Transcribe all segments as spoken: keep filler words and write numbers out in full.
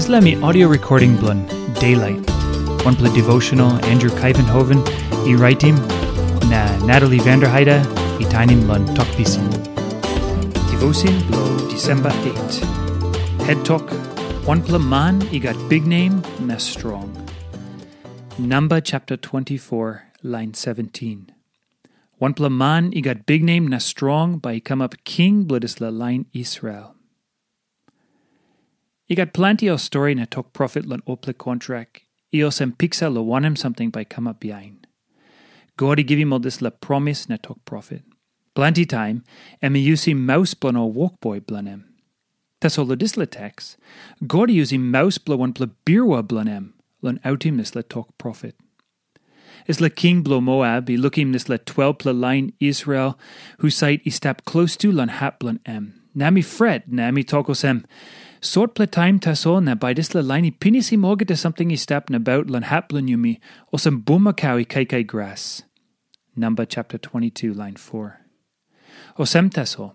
Dispela mi audio recording bilong Daylight, wanpela devotional Andrew Kaivenhoven i raitim, na Natalie Vanderheide i tainim long Tok Pisin. Devotion bilong Disemba eight. Head Tok, wanpela man i gat biknem na strong. Namba chapter twenty-four, lain seventeen. Wanpela man i gat biknem na strong bai i kamap king bilong dispela lain Israel. I gat planti ol stori na tok profet long olpela kontrak i olsem piksa long wanem samting bai i kamap bihain. God i givim ol dispela promis na tok profet. Planti taim em i yusim maus bilong ol wokboi bilong em. Tasol long dispela teks, God i yusim maus bilong wanpela birua bilong em long autim dispela tok profet. Dispela king bilong Moap i lukim dispela twelpela lain Israel husat i stap klostu long hap bilong em. Na em i fret, na em i tok olsem, "Sotpela taim tasol na bai dispela lain i pinisim olgeta samting i stap nabaut long hap bilong yumi, olsem bulmakau i kaikai gras." Namba chapter twenty-two, lain four. Olsem tasol,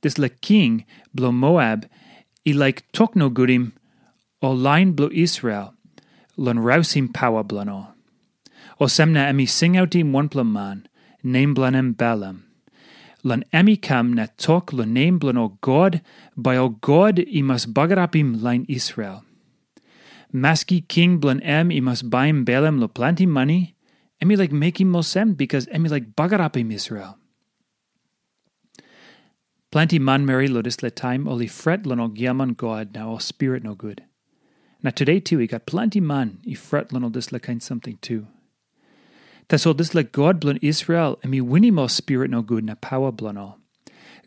dispela king bilong Moap i laik tok nogutim ol lain bilong Israel long rausim paua bilong ol. Olsem na em i singautim wanpela man, nem bilong en Balam, long em i kam na tok long nem bilong ol god, bai ol god i mas bagarapim lain Israel. Maski king bilong em i mas baim Balam long planti mani, em i laik mekim olsem bikas em i laik bagarapim Israel. Planti manmeri long dispela taim ol i fret long ol giaman god na ol spirit nogut. Na tude tu i gat planti man i fret long ol dispela kain samting tu. Tasol dispela God bilong Israel em i winim ol spirit nogut na paua bilong ol.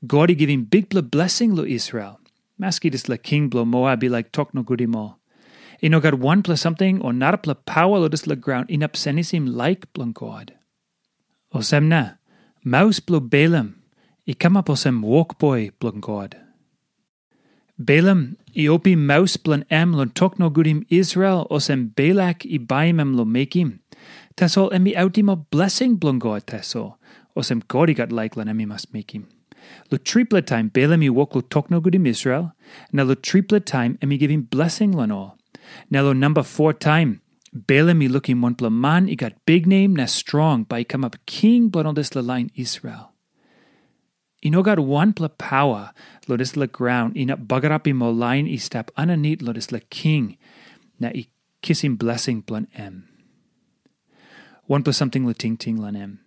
God i givim bikpela blesing long Israel, maski dispela king bilong Moab i laik tok nogut em ol. I no gat wanpela samting o narapela paua long dispela graun inap senisim laik bilong God. Olsem na, maus bilong Balam i kamap olsem wokboi bilong God. Balam i opim maus bilong em long tok nogutim Israel olsem Balak i baim em long mekim. Tasol em i autim ol blesing bilong God tasol, olsem God i gat laik long em i mas mekim. Long tripela taim Balam i wok long tok nogutim Israel, na long tripela taim em i givim blesing long ol. Na long namba foa taim, Balam i lukim wanpela man i gat biknem na strong bai i kamap king bilong ol dispela lain Israel. I no gat wanpela paua long dispela graun inap bagarapim ol lain i stap aninit long dispela king na i kisim blesing bilong em. Wanpela samting long tingting long em.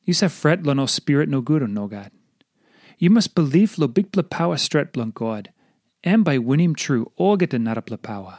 Yu save fret long ol spirit nogut o nogat? Yu mas bilip long bikpela paua stret bilong God. Em bai winim tru olgeta narapela paua.